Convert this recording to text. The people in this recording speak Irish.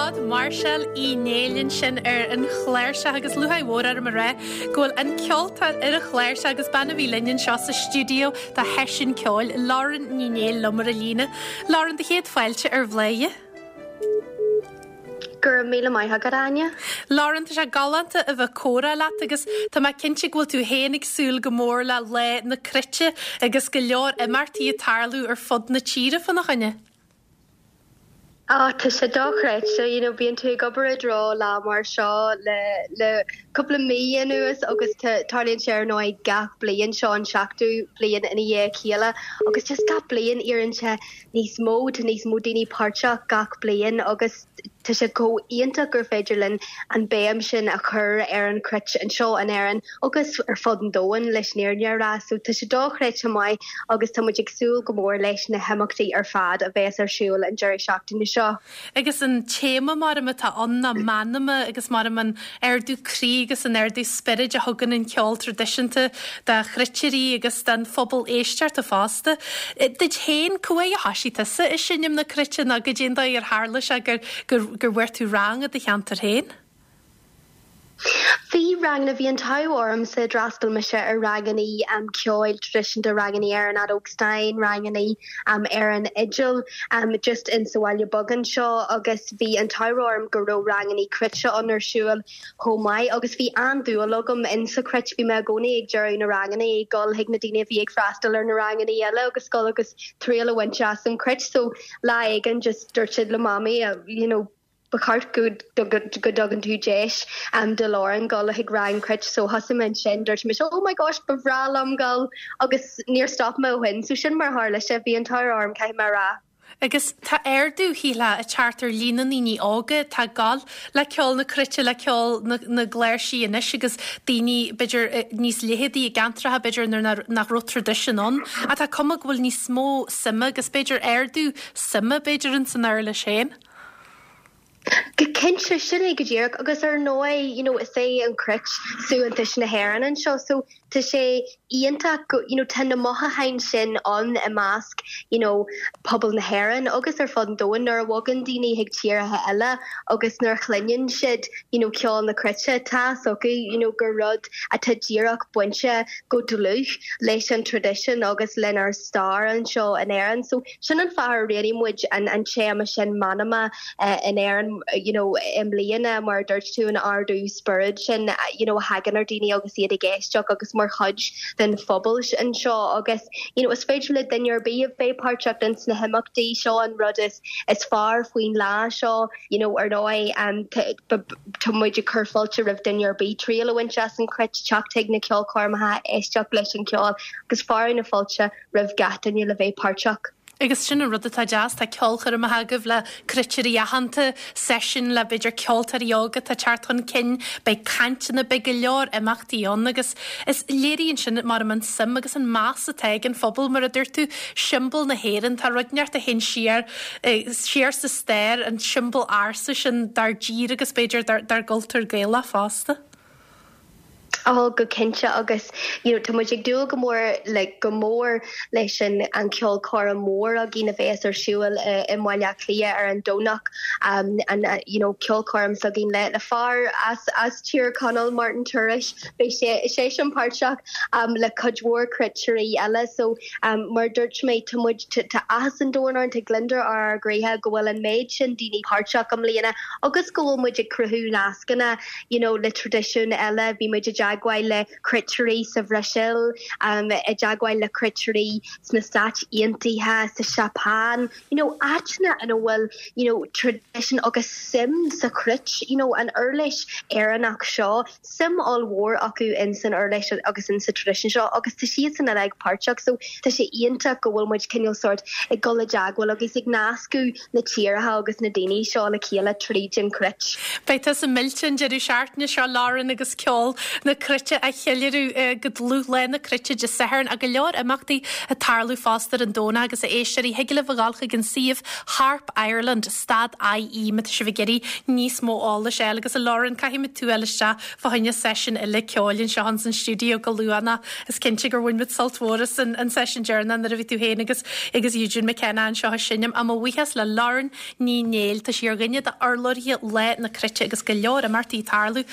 fad, Máirseáil Uí Néill ansin ar an chláirseach agus lúcháir mhór orm a rá go bhfuil an ceoltóir ar an chláirseach agus bean a bhí linn anseo sa stiúideo do sheisiún ceoil, Lauren Ní Néill liom ar an líne. Lauren, do chéad fáilte ar Bhladhaire. Go raibh míle maith agat, Áine. Lauren, tá sé galánta a bheith ag comhrá leat agus tá mé cinnte go bhfuil tú féin ag súil go mór le Lá na Cruite agus go leor imeachtaí ag tarlú ar fud na tíre fána choinne. Á, tá sé dochreidte, you know, bíonn tú ag obair i dtreo lá mar seo le le cúpla mí anuas agus tá tarlaíonn sé ar ndóigh gach bliain, seo an seachtú bliain ina dhiaidh a chéile agus just gach bliain éiríonn sé níos mó, tá níos mó daoine páirteach gach bliain agus tá sé chomh iontach gur féidir linn an béim sin a chur ar an chruit anseo in Éirinn agus ar fud an domhain leis an fhírinne a rá. So tá sé dochreidte maith agus tá muid ag súil go mór leis na himeachtaí ar fad a bheas ar siúl an deireadh seachtaine seo. Agus an téama maram atá ann ná meanma agus maram an ardú croí agus an ardú spioraid a thugann an ceol traidisiúnta do chruitirí agus don phobal éisteachta fosta. Duit féin, cá huair a thoisigh tusa ag seinm na cruite nó goidé an dóigh ar tharla sé gur gur bhfuair tú rang i do cheantar féin? Bhí ranganna, bhí an t-ádh ormsa, d'fhreastail mise ar ranganna ceoil traidisiúnta, ranganna ar an fheadóg stáin, ranganna ar an fhidil just in sa bhaile beag anseo agus bhí an t-ádh orm go raibh ranganna cruite ann ar siúl chomh maith agus bhí an-dúil agam in sa chruit, bhí mé i gcónaí ag deireadh na ranganna ag dul chuig na daoine a bhí ag freastal ar na ranganna eile agus dul agus triail a bhaint as an chruit so lá éigin just dúirt siad le mamaí you know ba cheart go dtugann tú deis do Lauren dul chuig rang cruit so thosaigh mé ansin, dúirt mise oh my gosh ba bhreá liom dul agus níor stop mé ó shin so sin mar a tharla sé, bhí an t-ádh orm caithfidh mé a rá. Agus tá ardú, shílfeá, ag teacht ar líon na ndaoine óga atá ag gabháil le ceol na cruite, le ceol na gcláirsí anois agus daoine b'fhéidir níos leitheadaí i gceantracha b'fhéidir nuair nach raibh traidisiún ann. Ach tá cuma go bhfuil níos mó suime agus b'fhéidir ardú suime b'fhéidir ins an uirlis féin. Go cinnte, sin é go díreach agus ar ndóigh you know is é an chruit suaitheantas na hÉireann anseo so tá sé iontach go you know tá na mothúcháin sin ann i measc you know pobal na hÉireann agus ar fud an domhain nuair a bhogann daoine chuig tíortha eile agus nuair a chluineann siad you know ceol na cruite tá fhios acu you know gur rud atá díreach bainte go dlúth leis an traidisiún agus lenár stair anseo in Éirinn so Sin an fáth ar roghnaigh muid an téama sin Meanma in Éirinn you know i mbliana mar a dúirt tú an ardú spioraid sin you know a thagann ar daoine agus iad ag éisteacht agus mar chuid den phobal anseo agus you know is féidir le duine ar bith a bheith páirteach ins na himeachtaí seo an rud is is fearr faoin lá seo you know ar ndóigh tá muid ag cur fáilte roimh duine ar bith triail a bhaint as an chruit, teacht chuig na ceolchoirmeacha, éisteacht leis an cheol agus fearadh na fáilte roimh gach duine le bheith páirteach. Agus sin an rud atá deas, tá ceolchoirmeacha agaibh le cruitirí aitheanta, seisiún le b'fhéidir ceoltóirí óga atá ag teacht chun cinn, beidh cainteanna, beidh go leor imeachtaí ann agus is léiríonn sin maram an suim agus an meas atá ag an phobal, mar a dúirt tú, siombail na hÉireann, tá rud inteacht a théann siar, siar sa stair, an tsiombail ársa sin dár dtír agus b'fhéidir dár gcultúr Gaelach fosta. Oh go cinnte agus you know tá muid ag dúil go mór le go mór leis an an ceolchoirm mhór againn a bheas ar siúl i i mBaile Átha Cliath ar an Domhnach um an you know ceolchoirm s'againn le le fear as as Tír Chonaill Martin Tourish beidh sé seisean páirteach um le cuid mhór cruitirí eile so um mar a dúirt mé tá muid tá tá áthas an domhain orainn tá gliondar ar ár gcroíthe go bhfuil an méid sin daoine páirteach i mbliana agus go bhfuil muid ag cruthú nascanna you know le traidisiúin eile, bhí muid i dteagmháil le cruitirí sa Bhrasaíl, i dteagmháil le cruitirí sna Stáit Aontaithe, sa Seapáin, you know áiteanna ina bhfuil you know traidisiún agus suim sa chruit, you know an uirlis Éireannach seo, suim ollmhór acu in san uirlis agus in sa traidisiún seo agus tá siadsan uilig páirteach so tá sé iontach go bhfuil muid cineál sórt ag dul i dteagmháil agus ag nascadh na tíortha agus na daoine seo le chéile tríd an chruit. Beidh tusa millte an deireadh seachtaine seo, Lauren, agus ceol na Cruite a cheiliúradh go dlúth Lá na Cruite Dé Sathairn ach go leor imeachtaí ag tarlú fosta ar an Domhnach agus a éisteoirí, thig libh a ghabháil chuig an suíomh Harp Ireland stad IE má tá sibh ag iarraidh níos mó eolais a fháil agus a Lauren caithfidh muid tú a fháil isteach fá choinne seisiún eile ceoil anseo ins an stiúideo go luath nó is cinnte gur bhain muid sult mhór as an an seisiún deireanach nuair a bhí tú féin agus agus Eugene McKenna anseo ag seinm. Ach mo bhuíochas le Lauren Ní Néill, tá sí ar dhuine d'urlabhraithe Lá na Cruite agus go leor imeachtaí ag tarlú.